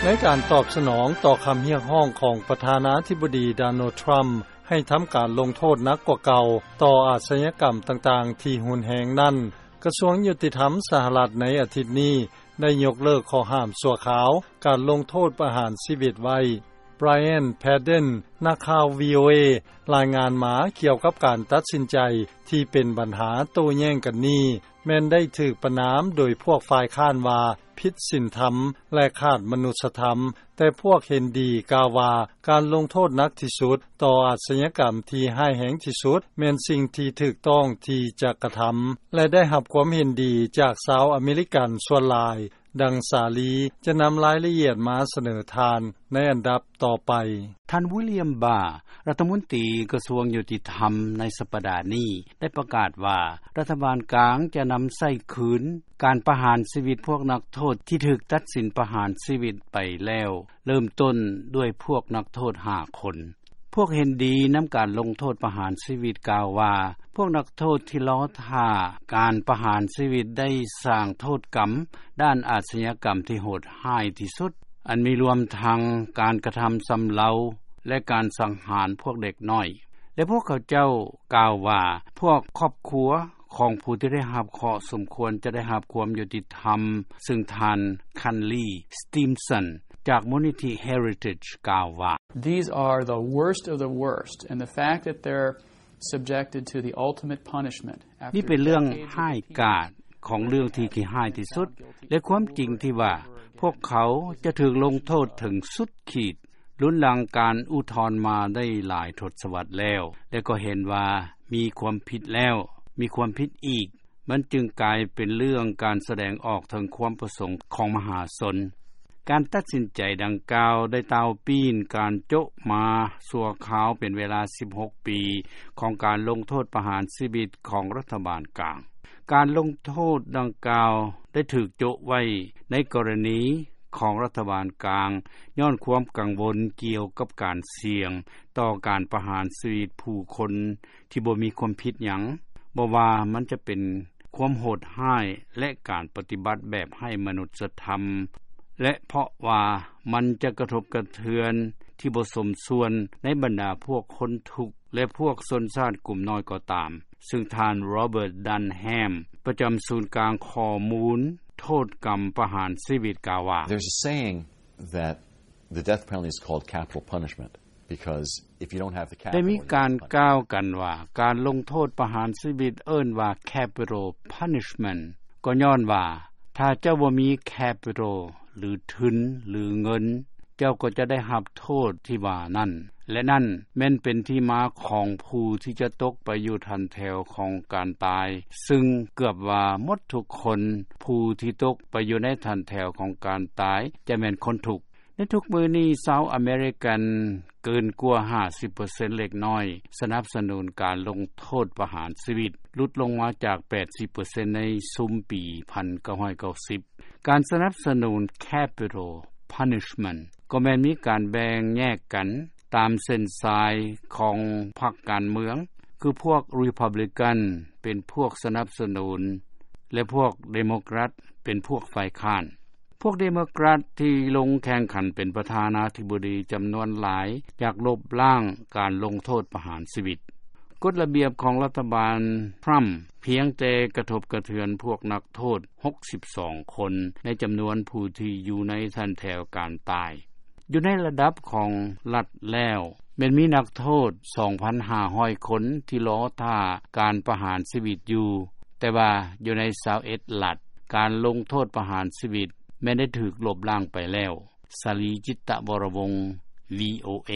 ໃນການຕອບສະໜອງຕໍ່ຄຳຮຽກຮ້ອງຂອງປະທານາທິບໍດີ ໂດນັລ ທຣຳ ໃຫ້ທຳການລົງໂທດໜັກກວ່າເກົ່າຕໍ່ອາຊຍາກຳຕ່າງໆທີ່ຮຸນແຮງນັ້ນ, ກະຊວງຍຸຕິທຳສະຫະລັດໃນອາທິດນີ້ ໄດ້ຍົກເລີກຂໍ້ຫ້າມຊົ່ວຄາວການລົງໂທດປະຫານຊີວິດໄວ້. ບຣາຍອັນ ແພດເດັນ ນັກຂ່າວ ວີໂອເອ ລາຍງານມາກ່ຽວກັບການຕັດສິນໃຈທີ່ເປັນບັນຫາໂຕ້ແຍ້ງກັນນີ້ ແມ່ນໄດ້ຖືກປະນາມໂດຍພວກຝ່າຍຄ້ານວ່າຜິດສິນທຳ ແລະ ຂາດມະນຸດສະທຳ, ແຕ່ພວກເຫັນດີກ່າວວ່າ ການລົງໂທດໜັກທີ່ສຸດຕໍ່ອາຊຍາກຳທີ່ຮ້າຍແຮງທີ່ສຸດ ແມ່ນສິ່ງທີ່ຖືກຕ້ອງທີ່ຈະກະທຳ ແລະ ໄດ້ຮັບຄວາມເຫັນດີຈາກຊາວອາເມລິກັນສ່ວນຫຼາຍ. ດັ່ງສາລີຈະນຳລາຍລະອຽດມາສະເໜີທ່ານໃນອັນດັບຕໍ່ໄປ. ທ່ານ ວິລຽມ ບາ ລັດຖະມົນຕີກະຊວງຍຸຕິທຳໃນສັບປະດານີ້ ໄດ້ປະກາດວ່າ ລັດຖະບານກາງຈະນຳໃຊ້ຄືນການປະຫານຊີວິດພວກນັກໂທດທີ່ຖືກຕັດສິນປະຫານຊີວິດໄປແລ້ວ, ເລີ່ມຕົ້ນດ້ວຍພວກນັກໂທດຫ້າຄົນ. ພວກເຫັນດີນຳການລົງໂທດປະຫານຊີວິດກ່າວວ່າ ພວກນັກໂທດທີ່ລໍຖ້າການປະຫານຊີວິດໄດ້ສ້າງໂທດກຳດ້ານອາຊຍາກຳທີ່ໂຫດຮ້າຍທີ່ສຸດ, ອັນມີລວມທັງການກະທຳຊຳເລົາ ແລະ ການສັງຫານພວກເດັກນ້ອຍ ແລະ ພວກເຂົາເຈົ້າກ່າວວ່າ ພວກຄອບຄົວຂອງຜູ້ທີ່ໄດ້ຮັບເຄາະສົມຄວນຈະໄດ້ຮັບຄວາມຍຸຕິທຳ, ຊຶ່ງທ່ານ ຄັນລີ ສະຕີມສັນ ຈາກມູນນິທິ Heritage ກ່າວວ່າ These are the worst of the worst, and the fact that they're subjected to the ultimate punishment after decades of ນີ້ເປັນເລື່ອງຮ້າຍກາດຂອງເລື່ອງທີ່ຂີ້ຮ້າຍທີ່ສຸດ ແລະ ຄວາມຈິງທີ່ວ່າພວກເຂົາຈະຖືກລົງໂທດເຖິງສຸດຂີດ ລຸນຫຼັງການອຸທອນມາໄດ້ຫຼາຍທົດສະວັດແລ້ວ ແລະ ກໍເຫັນວ່າມີຄວາມຜິດແລ້ວ ມີຄວາມຜິດອີກ, ມັນຈຶ່ງກາຍເປັນເລື່ອງການສະແດງອອກເຖິງຄວາມປະສົງຂອງມະຫາຊົນ. ການຕັດສິນໃຈດັ່ງກ່າວໄດ້ຕ່າວປີ້ນການໂຈະມາຊົ່ວຄາວເປັນເວລາສິບຫົກປີຂອງການລົງໂທດປະຫານຊີວິດຂອງລັດຖະບານກາງ. ການລົງໂທດດັ່ງກ່າວໄດ້ຖືກໂຈະໄວ້ໃນກໍລະນີຂອງລັດຖະບານກາງ ຍ້ອນຄວາມກັງວົນກ່ຽວກັບການສ່ຽງຕໍ່ການປະຫານຊີວິດຜູ້ຄົນ ທີ່ບໍ່ມີຄວາມຜິດຫຍັງ, ບໍ່ວ່າມັນຈະເປັນຄວາມໂຫດຮ້າຍ ແລະ ການປະຕິບັດແບບໄຮ້ມະນຸດສະທຳ ແລະ ເພາະວ່າມັນຈະກະທົບກະເທືອນທີ່ບໍ່ສົມສ່ວນໃນບັນດາພວກຄົນທຸກ ແລະ ພວກຊົນຊາດກຸ່ມນ້ອຍກໍຕາມ, ຊຶ່ງທ່ານ ໂຣເບີດ ດັນແຮມ ປະຈຳສູນກາງຂໍ້ມູນໂທດກຳປະຫານຊີວິດກ່າວວ່າ There's a saying that the death penalty is called capital punishment, because if you don't have the capital, ໄດ້ມີການກ່າວກັນວ່າ ການລົງໂທດປະຫານຊີວິດເອີ້ນວ່າ capital punishment ກໍຍ້ອນວ່າ ຖ້າເຈົ້າບໍ່ມີ capital ຫຼື ທຶນ ຫຼື ເງິນ, ເຈົ້າກໍຈະໄດ້ຮັບໂທດທີ່ວ່ານັ້ນ ແລະ ນັ້ນແມ່ນເປັນທີ່ມາຂອງຜູ້ທີ່ຈະຕົກໄປຢູ່ຖັນແຖວຂອງການຕາຍ, ຊຶ່ງເກືອບວ່າໝົດທຸກຄົນ ຜູ້ທີ່ຕົກໄປຢູ່ໃນຖັນແຖວຂອງການຕາຍ ຈະແມ່ນຄົນທຸກ. ໃນທຸກມື້ນີ້ ຊາວອາເມລິກັນເກີນກວ່າຫ້າສິບເປີເຊັນເລັກນ້ອຍ ສະໜັບສະໜູນການລົງໂທດປະຫານຊີວິດ, ຫຼຸດລົງມາຈາກແປດສິບເປີເຊັນໃນຊຸມປີພັນເກົ້າຮ້ອຍເກົ້າສິບ. ການສະໜັບສະໜູນ capital punishment ກໍແມ່ນມີການແບ່ງແຍກກັນຕາມເສັ້ນສາຍຂອງພັກການເມືອງ, ຄືພວກ Republican ເປັນພວກສະໜັບສະໜູນ ແລະ ພວກ Democrat ເປັນພວກຝ່າຍຄ້ານ. ພວກ Democrat ທີ່ລົງແຂ່ງຂັນເປັນປະທານາທິບໍດີຈຳນວນຫຼາຍ ຢາກລົບລ້າງການລົງໂທດປະຫານຊີວິດ. ກົດລະບຽບຂອງລັດຖະບານທຣຳພຽງແຕ່ກະທົບກະເທືອນພວກນັກໂທດຫົກສິບສອງຄົນ ໃນຈຳນວນຜູ້ທີ່ຢູ່ໃນຖັນແຖວການຕາຍ. ຢູ່ໃນລະດັບຂອງລັດແລ້ວ ແມ່ນມີນັກໂທດສອງພັນຫ້າຮ້ອຍຄົນທີ່ລໍຖ້າການປະຫານຊີວິດຢູ່, ແຕ່ວ່າຢູ່ໃນຊາວເອັດລັດ ການລົງໂທດປະຫານຊີວິດແມ່ນໄດ້ຖືກລົບລ້າງໄປແລ້ວ. ສາລີ ຈິດຕະວໍລະວົງ ວີໂອເອ.